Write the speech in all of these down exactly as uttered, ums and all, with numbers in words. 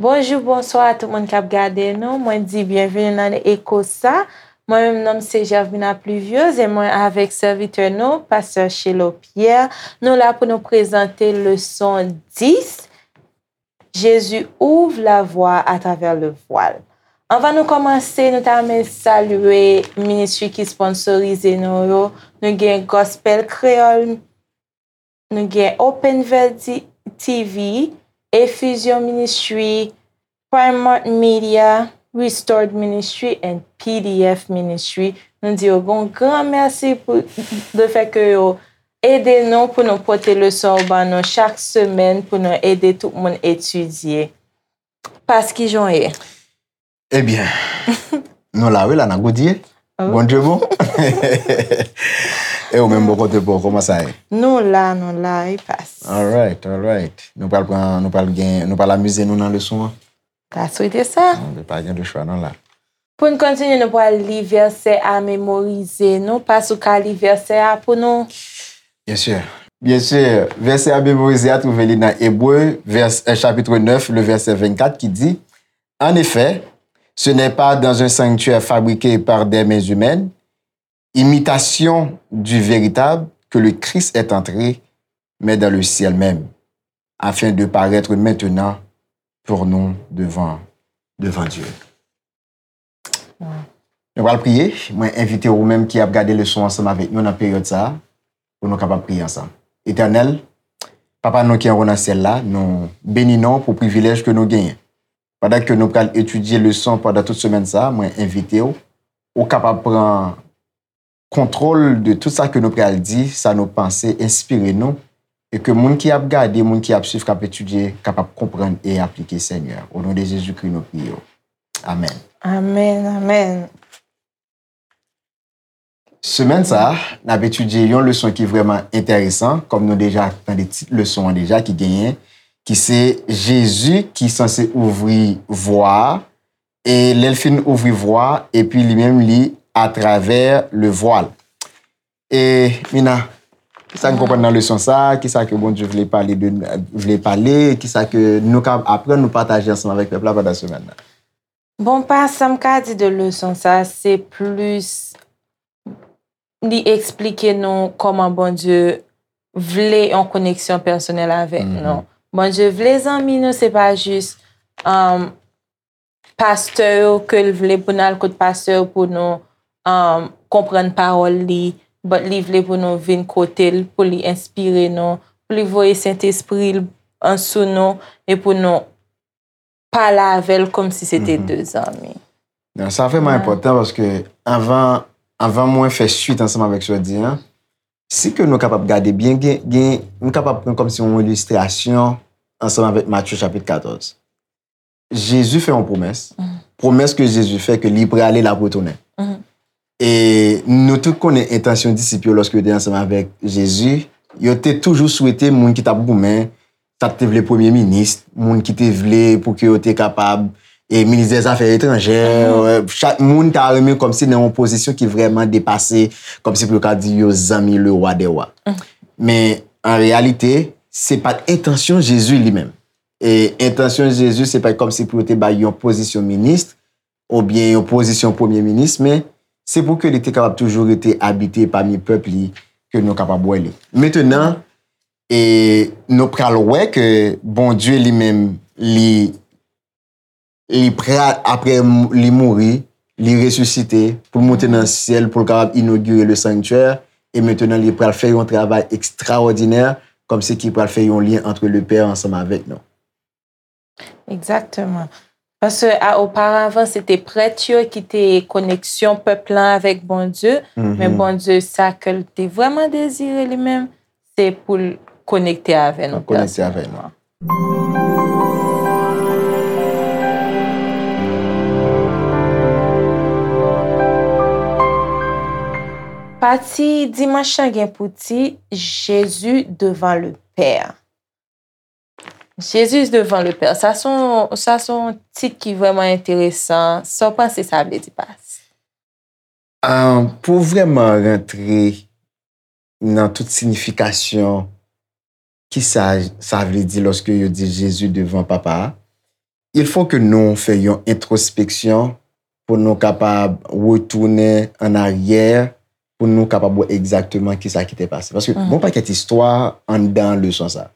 Bonjou, bonswa a tout moun k ap gade nou. Mwen di byenveni nan Eko sa. Mwen menm, non m se Gervina Pluviose e mwen avèk sèvitè nou, pastè Chelo Pierre. Nou la pou nou prezante leson dis, Jésus ouvre la voie à travers le voile. Anvan nou kòmanse, nou ta renmen salye ministri ki sponsorize nou yo. Nou gen Gospel Kreyòl, nou gen Open Verdi T V, Effusion Ministry, Primark Media, Restored Ministry and P D F Ministry. Nou di yo yon gran mèsi pou le fè ke yo ede nou pou nou pote leson yo ban nou chak semèn pou nou ede tout moun etidye. Pas, kijan w ye? Ebyen, nou la wi la nan goudye. Bondye bon. E ou menm bò kote pa w, kòman sa ye? Nou la, nou la, wi Pas. Alright, alright. Nou pral pran, nou pral gen, nou pral amize nou nan leson an. Ta swete sa. Nou pa gen de chwa non la. Pou n kontinye, nou pral li vèsè a memorize. Nou Pas, ou ka li vèsè a pou nou? Bien sûr. Bien sûr. Vèsè a memorize a twouve li nan Ebre, vers, euh, chapitre neuf, le verset vingt-quatre qui dit, En effet, ce n'est pas dans un sanctuaire fabriqué par des mains humaines, imitation du véritable, que le Christ est entré, mais dans le ciel même, afin de paraître maintenant pour nous devant, devant Dieu. Nou pral priye. Mwen envite ou menm ki ap gade leson ansanm avèk nou nan peryòd sa a, pou nou kapab priye ansanm. Etènèl, Papa nou ki anwo nan syèl la, nou beni non w pou privilèj ke nou genyen. Pandan ke nou pral etidye leson pandan tout semèn sa a, mwen envite w, ou kapab pran kontwòl de tout sa ke nou pral di, sa nou panse, enspire nou, e ke moun ki ap gade, moun ki ap swiv, k ap etidye, kapab konprann e aplike, Senyè. O non de Jezikri, nou priye w. Amèn. Amèn, amèn. Semèn sa a, n ap etidye yon leson ki vrèman enteresan, kòm nou deja tande tit leson an deja ki genyen, ki se Jezi ki sanse ouvri vwa a, e lè l fin ouvri vwa a, epi li menm li atravè le voile. E Mina, kisa n konprann nan leson sa a? Kisa ke Bondye vle pale de, vle pale? Kisa ke nou ka aprann, nou pataje ansanm avèk pèp la pandan semèn nan? Bon, pa sa m ka di de leson sa, se plis li eksplike nou kòman Bondye vle yon koneksyon pèsonèl avèk nou. Bondye vle zanmi nou, se pa jis um, pastè yo ke l vle pou n al kot pastè yo pou nou um, konprann pawòl li, but li vle pou nou vin kote l, pou li enspire nou, pou li voye Sentespri l sou nou e pou nou pale avè l kòmsi se te de zanmi. Non, sa vrèman enpòtan paske anvan, anvan mwen fè swit ansanm avèk sa w di an, si ke nou kapab gade byen, gen, gen, nou kapab pran kòmsi yon ilistrasyon ansanm avèk Matye chapit katòz. Jezi fè yon pwomès. Pwomès ke Jezi fè ke li prale, l ap retounen. E nou tout konnen entansyon disip yo lòske yo te ansanm avèk Jezi. Yo te toujou swete moun ki t ap goumen, sa k te vle premye minis, moun ki te vle pou ke yo te kapab e minis dè zafè etranjè. Chak moun ta renmen kòmsi nan yon pozisyon ki vrèman depase, kòmsi pou yo ka di yo zanmi le wa dè wa. Men an reyalite, se pa t entansyon Jezi li menm. E entansyon Jezi se pa t kòmsi pou yo te bay yon pozisyon minis, oubyen yon pozisyon premye minis, men se pou ke li te kapab toujou rete abite pami pèp li, ke nou kapab wè li. Mentenan, e nou pral wè ke Bondye li menm, li, li pral, apre li mouri, li resisite, pou l monte nan syèl, pou l kapab inogire le sanctuaire, e mentenan li pral fè yon travay ekstrawòdinè, kòmsi ki pral fè yon lyen antre le Pè ansanm avèk nou. Egzakteman. Paske a, oparavan, se te prèt yo ki te koneksyon pèp lan avèk Bondye, men Bondye, sa ke l te vrèman dezire li menm, se pou l konekte avè nou. Konekte avè nou. Pati dimanch lan gen pou tit Jésus devant le Père. Jésus devant le Père. Sa se yon, sa se yon tit ki vrèman enteresan. Sa w panse sa vle di, Pas? Pou vrèman rantre nan tout siyifikasyon kisa sa vle di lòske yo di Jezi devan Papa a, il faut que nou fè yon entwospeksyon pou nou kapab retounen an aryè, pou nou kapab wè egzakteman kisa ki te pase. Paske gon pakèt istwa anndan leson sa.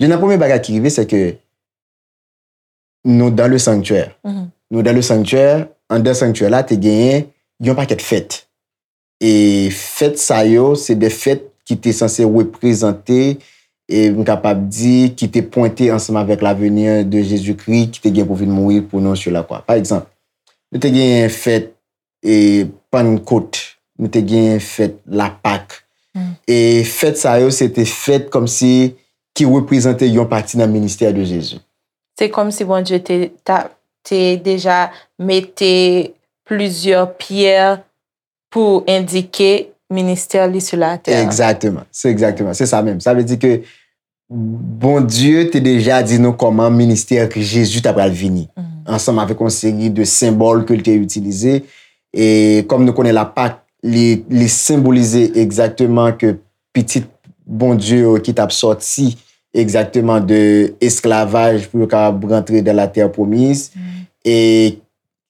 Youn nan premye bagay ki rive, se ke nou dans le sanctuaire. Nou dans le sanctuaire, anndan sanctuaire la, te genyen yon pakèt fèt. E fèt sa yo, se de fèt ki te sanse reprezante, e m kapab di, ki te pwente ansanm avèk la venue de Jésus-Christ ki te gen pou vin mouri pou nou sur la croix. Pa egzanp, nou te genyen fèt e Pannkot, nou te genyen fèt Lapak. E fèt sa yo, se te fèt kòmsi ki reprezante yon pati nan ministè de Jezi. Se kòmsi Bondye te, ta, te deja mete plizyè pyè pou endike ministè li sou latè. Egzakteman. Se egzakteman. Se sa menm. Sa vle di ke Bondye te deja di nou kòman ministè Jezi ta pral vini, ansanm avèk yon seri de senbòl ke l te itilize. E kòm nou konnen Lapak, li, li senbolize egzakteman ke pitit Bondye yo ki t ap sòti egzakteman de esklavaj pou yo kapab rantre dans la terre promise. E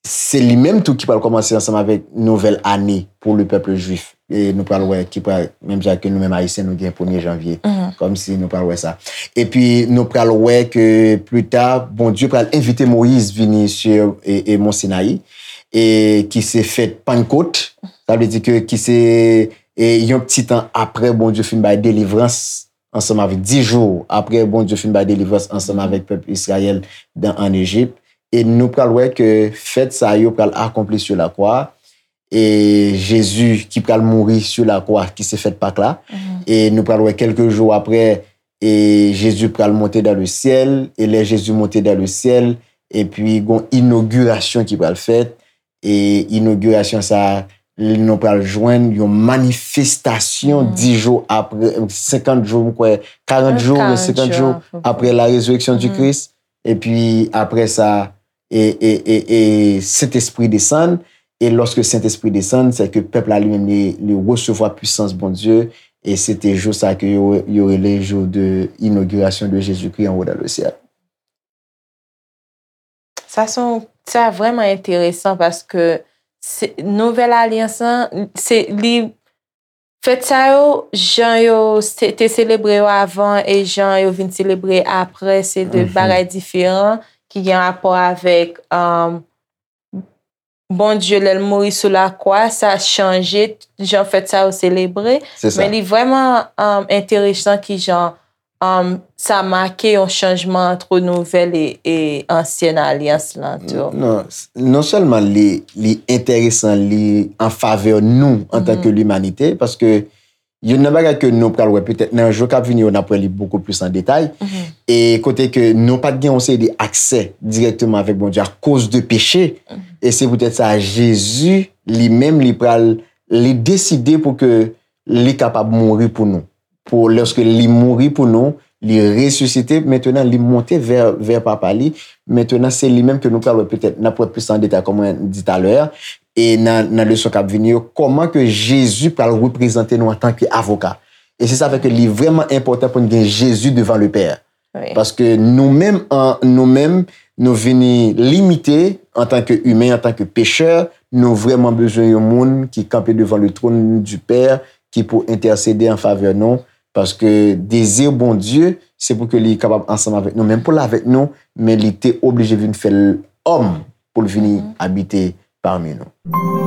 se li menm tou ki pral kòmanse ansanm avèk nouvèl ane pou le pèp jwif. E nou pral wè ki pral, menm jan ke nou menm Ayisyen, nou gen premye janvye. Kòmsi nou pral wè sa. Epi nou pral wè ke pli ta, Bondye pral envite Moyiz vini sou e, e Mont Sinayi, e ki se fèt Pannkot. Sa vle di ke ki se e, yon ti tan apre Bondye fin bay delivrans ansanm avèk, dis jou apre Bondye fin bay delivrans ansanm avèk pèp Izrayèl dan, ann Ejip. E nou pral wè ke fèt sa yo pral akonpli sou lakwa. E Jezi ki pral mouri sou lakwa, ki se fèt Pak la. E nou pral wè kèlke jou apre, e Jezi pral monte dans le ciel. E lè Jezi monte dans le ciel, epi gon inogirasyon ki pral fèt. E inogirasyon sa a, nou pral jwenn yon manifestasyon dis jou apre, senkant jou, m kwè, karant jou, senkant jou apre la résurrection du Christ. Epi apre sa, e, e, e, e Sentespri desann. E lòske Sentespri desann, se ke pèp la li menm li, li resevwa pwisans Bondye. E se te jou sa ke yo, yo rele jou de inogirasyon de Jezikri anwo dans le ciel. Sa se yon, sa vrèman enteresan paske se, Nouvèl Alyans lan, se, li, fèt sa yo, jan yo se, te selebre yo avan e jan yo vin selebre apre, se de bagay diferan ki gen rapò avèk, um, Bondye, lè l mouri sou lakwa, sa chanje jan fèt sa yo selebre. Men li vrèman, um, enteresan kijan, um, sa make yon chanjman ant nouvèl e, e ansyen alyans lan tou. Non, non sèlman li, li enteresan, li an favè nou antanke limanite, paske youn nan bagay ke nou pral wè petèt nan jou k ap vini yo, n ap wè li bokou plis an detay. E kote ke nou pa t gen yon seri de aksè dirèkteman avèk Bondye akoz de peche. E se poutèt sa, Jezi, li menm, li pral, li deside pou ke li kapab mouri pou nou. Pou, lòske li mouri pou nou, li resisite, mentenan, li monte vè, vè Papa li. Mentenan, se li menm ke nou pral wè petèt, n ap wè plis an detay, kòm mwen di talè a. E nan, nan leson k ap vini yo, kòman ke Jezi pral reprezante nou antanke avoka. E se sa fè ke li vrèman enpòtan pou n gen Jezi devan le Pè. Paske nou menm, an, nou menm, nou vini limite antanke imen, antanke pechè, nou vrèman bezwen yon moun ki kanpe devan le trône du Père, ki pou entèsede an favè nou, paske dezi Bondye, se pou ke li kapab ansanm avèk nou, menm pou l avèk nou, men li te oblije vin fè l òm pou l vini abite pami nou.